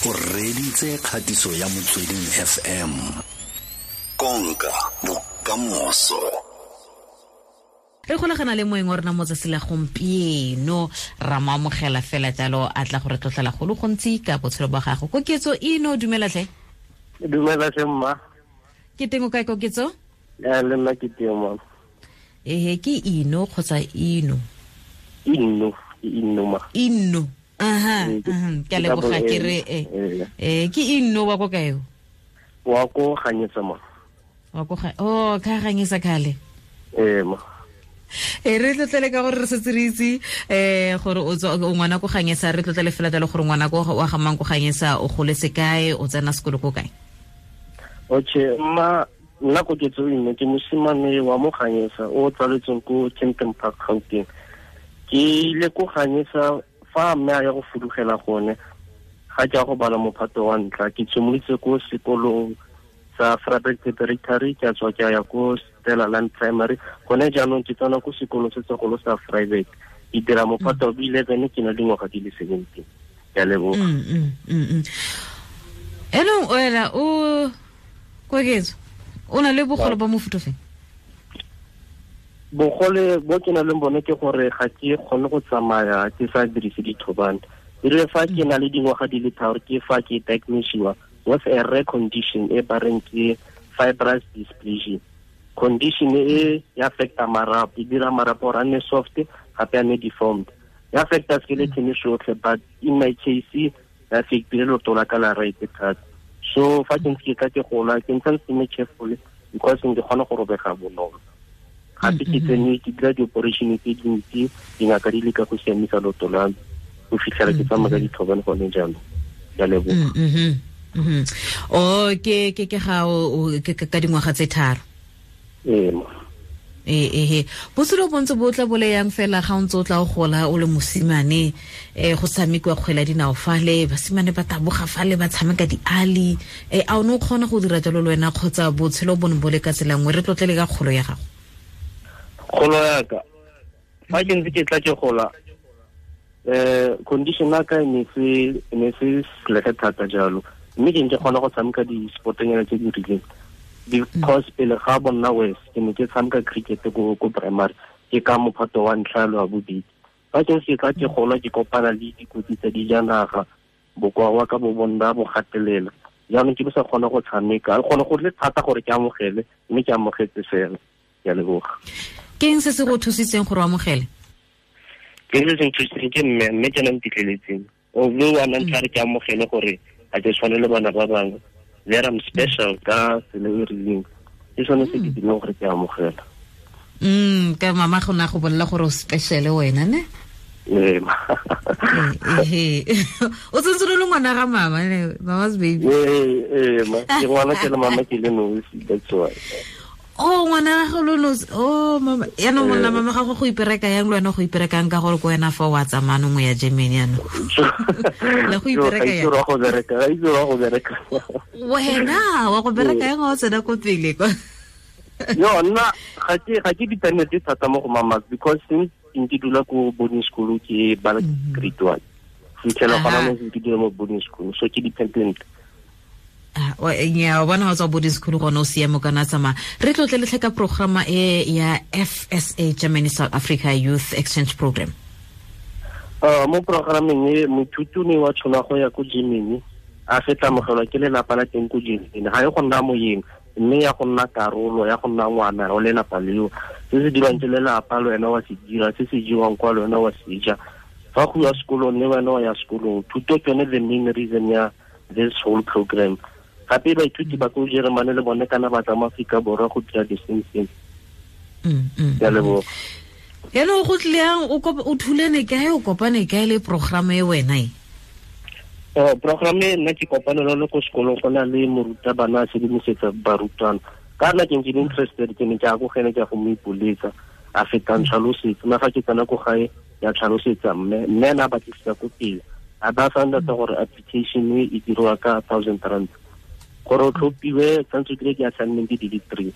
O reditse kgatiso ya Motsweding FM. Konka bokamoso. Re golagana le moeng wa rona mo tsatsi la gompieno, ra mo amogela fela jalo, a tla go re tlotlela go le gontsi ka botshelo ba gago. Koketso Ino, dumela tlhe. Dumela tlhe mma. Ke teng o kae, Koketso? Ya, le nna ke teng mama. Ehe, ke Ino kgotsa Ino? Ino, ke Ino ma. Ino. Aha, ke a leboga, ke re ke Ino wa ko kae o? Wa ko Ganyesa ma. Wa ko ga, oh, ka Ganyesa kale. Ee ma. E re tlotlele ka gore re setse re itse gore o tswa o ngwana ko Ganyesa, re tlotlele fela jalo gore ngwana ko wa ga mang ko Ganyesa, o goletse kae, o tsena sekolo ko kae? Okay, mma, nna Koketso Ino ke mosimane wa mo Ganyesa o tsaletsweng ko Kempton Park, Gauteng. Ke ile ko Ganyesa fa mme a ya go fudugela gone, ga ke ya go bala mophato wa ntlha. Ke tshimolotse ko sekolong sa Vryburg Preparatory, ke a tswa ke ya ko Stella Land Primary. Gone jaanong ke tsena ko sekolong se segolo sa Vryburg. Ke dira mophato wa 11, ke na le dingwaga di le 17. Ke a leboga. Enong wena o Koketso, o na le bogole ba mofuta ofe? Bogole bo ke nang le bone ke gore ga ke kgone go tsamaya ke sa dirise dithobane. E rile fa ke na le dingwaga di le 3, ke fa ke diagnosed with a rare condition e ba reng ke fibrous dysplasia. Condition e ya affecta marapo, e dira marapo gore a nne soft, gape a nne deformed. Ya affecta skeleton sotlhe, but in my case ya affectile leoto la ka la right thata. So fa ke ntse ke tla ke gola, ke ntse ke nne careful because ke kgona go robega bonolo. Gape ke tsene ke dira di-operation tse dintsi, dingaka di leka go siamisa leoto la me go fitlhela ke tsamaya ka dithobane gone jaanong. Ke a leboga. O, ke, ke, ke ga o, o, ke, ke, ka dingwaga tse 3. Ee, ma. Ee, ee, botshelo bo ntse bo tla bo le yang fela ga o ntse o tla o gola o le mosimane, go tshamekiwa kgwele ya dinao fale, basimane ba taboga fale, ba tshameka diali. A o ne o kgona go dira jalo le wena kgotsa botshelo bo ne bo le ka tsela nngwe? Re tlotlele ka kgolo ya gago. Kgolo ya ka, fa ke ntse ke tla ke gola, condition ya ka e ne se, e ne se selege thata jalo, mme ke ne ke kgona go tshameka di-sportnyana tse di rileng. Because pele ga bonna west, ke ne ke tshameka cricket ko primary, ke ka mophato wa ntlha le wa bobedi. Fa ke ntse ke tla ke gola, ke kopana le dikotsi tsa dijanaga, bokoa wa ka bo bonna bo gatelela. Jaanong ke bo sa kgona go tshameka, gone go le thata gore ke amogele, mme ke amogetse fela. Ke a leboga. Ke eng se se go thusitseng gore o amogele? Ke se se nthusitseng ke mme, mme ke ena ntitleletseng. O bua wa nna re ke amogele gore ga ke tshwane le bana ba bangwe. There I'm special ka tsela e rileng. Ke sone se ke dirileng gore ke amogela. Ka mama go na go bolela gore o special wena, ne? Ee, ma. Ee, o tsentse le ngwana ga mama, ne? Mama's baby. Ee, ee, ma. Ke ngwana ke le mama ke le nosi, that's why. Oh, ngwana ga go lo nosi. Oh, mama. Yaanong monna mama ga go go ipereka yang le wena go iperekang ka gore ko wena fa wa tsamaya nngwe ya Germany yaanong. Le go ipereka yang? Ga itse go bereka, ga itse go bereka. Wena wa go bereka yang o tsena ko pele kwa? Yo, nna ga ke dependent thata mo go mama because since ke dula ko boarding school ke bala grade 1. Fitlhela gona mo ke dula mo boarding school, so ke dependent. Nya, o bona ha o tswa boarding school gone o siame kana tsamaya. Re tlotle le tlhe ka programa e ya FSA Germany South Africa Youth Exchange Program. Mo programeng e moithuti o ne wa tshwana go ya ko Germany, a fetla amogelwa ke lelapa la teng ko Germany. Ga e go nna moyeng, mme ya go nna karolo ya go nna ngwana o lelapa leo. Se se dirwang ke lelapa le wena wa se dira, se se jewang kwa le wena wa se ja. Fa go ya sekolong le wena wa ya sekolong. Thuto ke yone the main reason ya this whole program. Gape baithuti ba ko Jeremane le bone kana ba tla mo Aforika Borwa go dira the same thing. Ke a leboga. Yaanong go tlile yang, o thulene kae, o kopane kae le programa e wena e? Programa e nna ke kopane le yone ko sekolong, go na le morutabana a sedimosetsa barutwana. Ka nna ke ntse ke le interested, ke ne ke ya ko go ene, ke ya go mo ipoletsa, a feta ntlhalosetsa. Nna fa ke tsena ko gae, ya tlhalosetsa mme, mme ena a batlisisa ko pele. A ba sa nna gore application e e dirwa ka thousand rand. Gore o tlhophiwe, tshwanetse o dire di-assignment di le 3.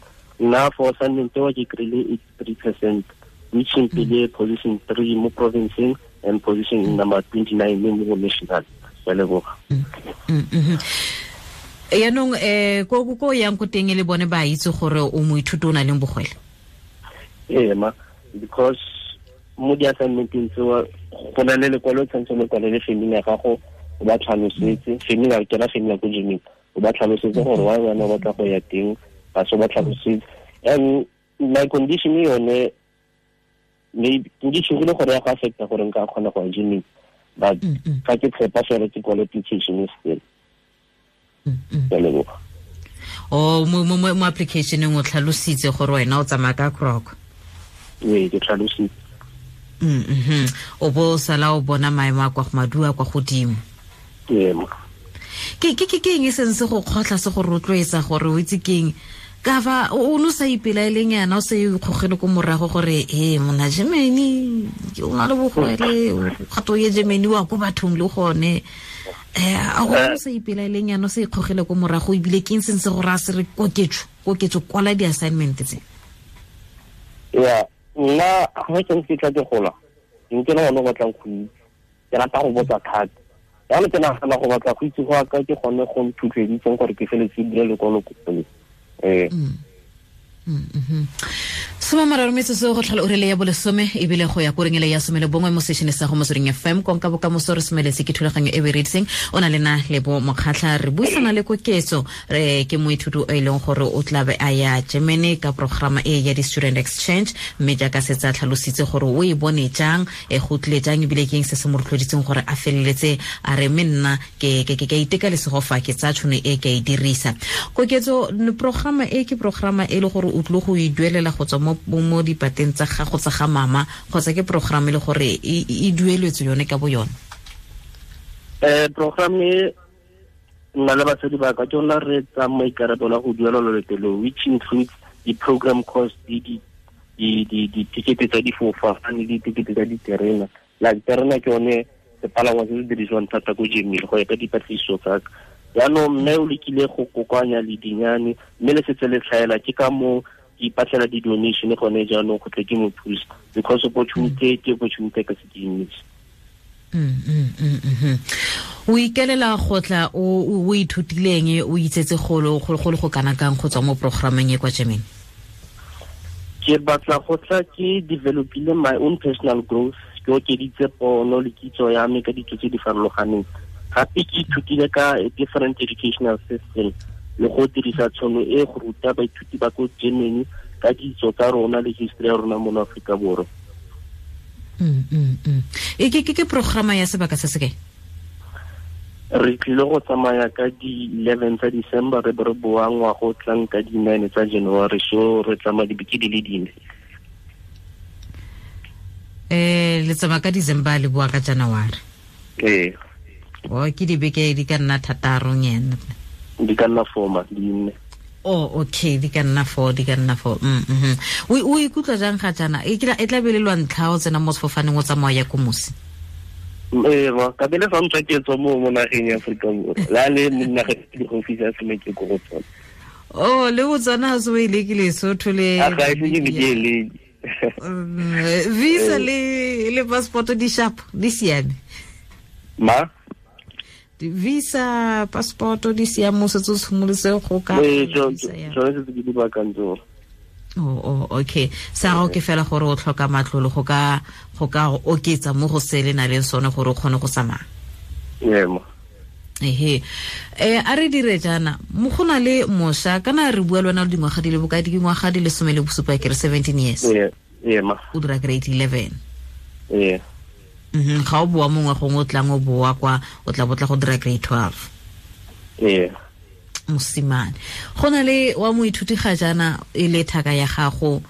Nna for assignment eo ke kry-ile 83%, which mpile position 3 mo provinceng and position number 29 mo national. Ke leboga. Yaanong ko yang ko teng le bone ba itse gore o moithuti o na leng bogwele? Ee ma, because mo di-assignmenteng tseo go na le lekwalo tshwanetse le kwale le family ya gago, o ba tlhalosetse family ya kena family ko gyming, o ba tlhalosetse gore why wena o batla go ya teng, ba se ba tlhalosetse. And my condition yone maybe ke tshogile gore ya go affecta gore nka kgona go ya gyming, but ga ke tshepa fela ke kwale application still. Ke leboga. O mo application o tlhalositse gore wena o tsamaya ka kroko? Ee, ke tlhalositse. O bo sala o bona maemo a kwa go madua kwa godimo. Ee. Ke eng e seng se go kgotlha, se go rotloetsa gore o itse keng ka fa o no sa ipelaeleng yana, o se ikgogele ko morago gore e mona Germany o na le bogwele, gato ye Germany wa ko bathong le gone, a o sa ipelaeleng yana, o se ikgogele ko morago, ebile ke eng seng se go raya se re koketso kwala di-assignment tse? Ya nna ga ke ntse ke tla ke gola, nke le gone go batlang go itse, ke rata go botsa thata. Jaanong ke nagana go batla go itse go aka ke gone go nthutleditseng gore ke feletse ke dire lekwalo ko pele. 33 metsotso go tlhola ura le ya bolesome, ebile go ya ko reng ele ya 11 mo sešene sa go Motsweding FM. Konka bokamoso re semeletse ke thulaganyo e berediseng o na le na Lebo Mokgatlha, re buisana le Koketso, re ke moithuti o e leng gore o tlabe a ya Germany ka programa e ya di-student exchange, mme jaaka setse a tlhalositse gore o e bone jang, go tlile jang, ebile ke eng se se mo rotloeditseng gore a feleletse a re mme nna ke iteka lesego fa ke tsaya tšhono e ke e dirisa. Koketso, programa e ke programa e le gore o tlile go e duelela go tswa mo dipateng tsa gago tsa ga mama, kgotsa ke program e le gore e dueletswe yone ka bo yone? Program e nna le batsadi ba ka ke yona re tsaya maikarabelo a go duela loeto leo, which includes di-program cost, di-ticket tsa difofane, di-ticket tsa diterena. Like terena ke yone sepalangwa se se dirisiwang thata ko Germany go ya ka dipatlisiso tsa ka. Jaanong mme o lekile go kokoanya ledinyane, mme le setse le tlhaela, ke ka moo ke ipatlela di-donation gone jaanong go tle ke mo thusa, because opportunity ke opportunity ka se ke nnetse. O ikelela go tla o ithutileng, o itsetse go le go kana kang go tswa mo programmeng e kwa Germany? Ke batla go tla ke developile my own personal growth, ke okeditse pono le kitso ya me ka ditso tse di farologaneng. Gape ke ithutile ka different educational system le go dirisa tšhono e go ruta baithuti ba ko Germany ka ditso tsa rona le history ya rona mo Aforika Borwa. E ke programa ya sebaka se se kae? Re tlile go tsamaya ka di-11 tsa December, re be re boa ngwaga o tlang ka di-9 tsa January, so re tsamaya dibeke di le dine. Le tsamaya ka December le boa ka January? Ee. O ke dibeke di ka nna thataro nyana. Di ka nna 4 ma, di nne. Oh, okay, di ka nna 4, di ka nna 4. O ikutlwa jang ga jaana? E tla be le lwa ntlha o tsena mo sefofaneng o tsamaya ya ko mosi? Ee, ka bele fa ntswa ke tswa mo nageng ya Aforika Borwa. La le mo nageng di go fisa se me ke go go tsona. Oh, le Botswana ha se o e lekile Lesotho le. A ga e se ke ke le. Visa le passport di sharp, di siame. Ma? Visa, passport di siame, o setse o tshimolotse go ka. Ee, tsone setse ke di baakantse. Oh, okay. Sa gago ke fela gore o tlhoka matlolo go ka oketsa mo go se le na leng sone gore o kgone go tsamaya. Ee ma. Ehe. A re dire jaana, mo go na le mošwa, kana re bua le wena le dingwaga di le bokae, dingwaga di le 17, ke re 17 years. Ee ma. O dira grade 11. Ee. Ga o boa mongwe gongwe o tlang o boa kwa, o tla botla go dira grade 12. Ee. Mosimane, go na le wa moithuti ga jaana e le thaka ya gago,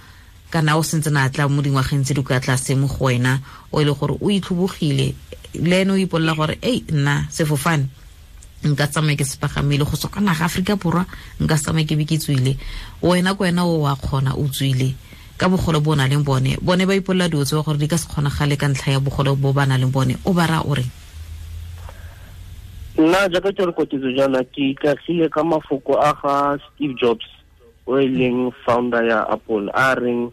kana o sentse na tla mo dingwageng tse di kwa tlase mo go wena, o e le gore o itlhobogile le ene o ipolela gore ei nna sefofane nka tsamaya ke se pagamile go tswa kwa naga Aforika Borwa, nka tsamaya ke be ke tswile. Wena ko wena o wa kgona, o tswile ka bogolo bo o nang le bone, bone ba ipolela dilo tseo gore di ka se kgonagale ka ntlha ya bogolo bo ba nang le bone, o ba raya o reng? Nna jaaka ke re Koketso jaana, ke ikagile ka mafoko a ga Steve Jobs, o e leng founder ya Apple, a reng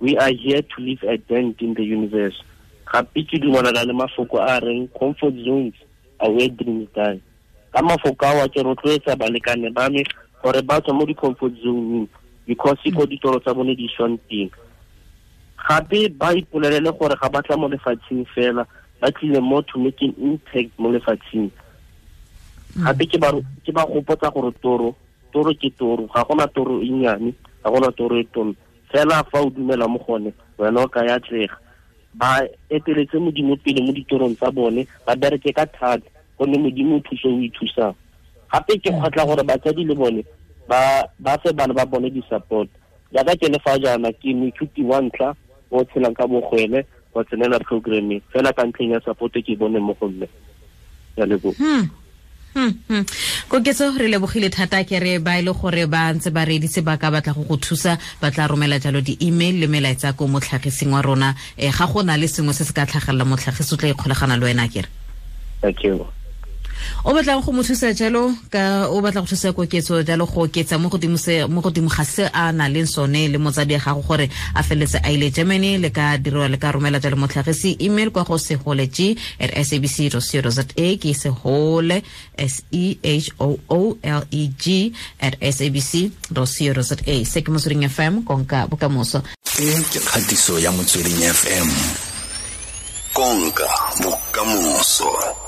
we are here to leave a dent in the universe. Gape ke dumelana le mafoko a reng comfort zones are where dreams die. Ka mafoko ao ke rotloetsa balekane ba me gore ba tswa mo di-comfort zone because ko ditoro tsa bone di swang teng. Gape ba ipolelele gore ga ba tla mo lefatsheng fela, ba tlile mo to make an impact mo lefatsheng. Gape ke ba gopotsa gore toro ke toro, ga gona toro e nnyane, ga gona toro e tona. Fela fa o dumela mo gone, wena o ka ya atlega. Ba eteletse Modimo pele mo ditorong tsa bone, ba bereke ka thata, gonne Modimo o thuso o ithusang. Gape ke kgotla gore batsadi le bone ba fe bana ba bone di-support. Jaaka ke le fa jaana, ke moithuti wa ntlha o tshelang ka bogwele wa tsenela programming fela ka ntlheng ya support ke bone mo go mme. Ya leboga. Koketso, re lebogile thata. Ke re ba ile gore ba ntse ba reeditse, ba ka batla go thusa, ba tla romela jalo di-email le melaetsa ko motlhagising wa rona. Ga go na le sengwe se se ka tlhagelela motlhagisi, o tla ikgolagana le wena, kere? Thank you. O batlang go mo thusa jalo, ka o batla go thusa Koketso jalo go oketsa mo godimo ga se a na leng sone le motsadi ya gago gore a feletse a ile Germany, le ka dirwa, le ka romela jalo motlhagisi email kwa go seholeg@sabc.co.za, ke sehole sehooleg@sabc.co.za. Se ke Motsweding FM, konka bokamoso. E ke kgatiso ya Motsweding FM, konka bokamoso.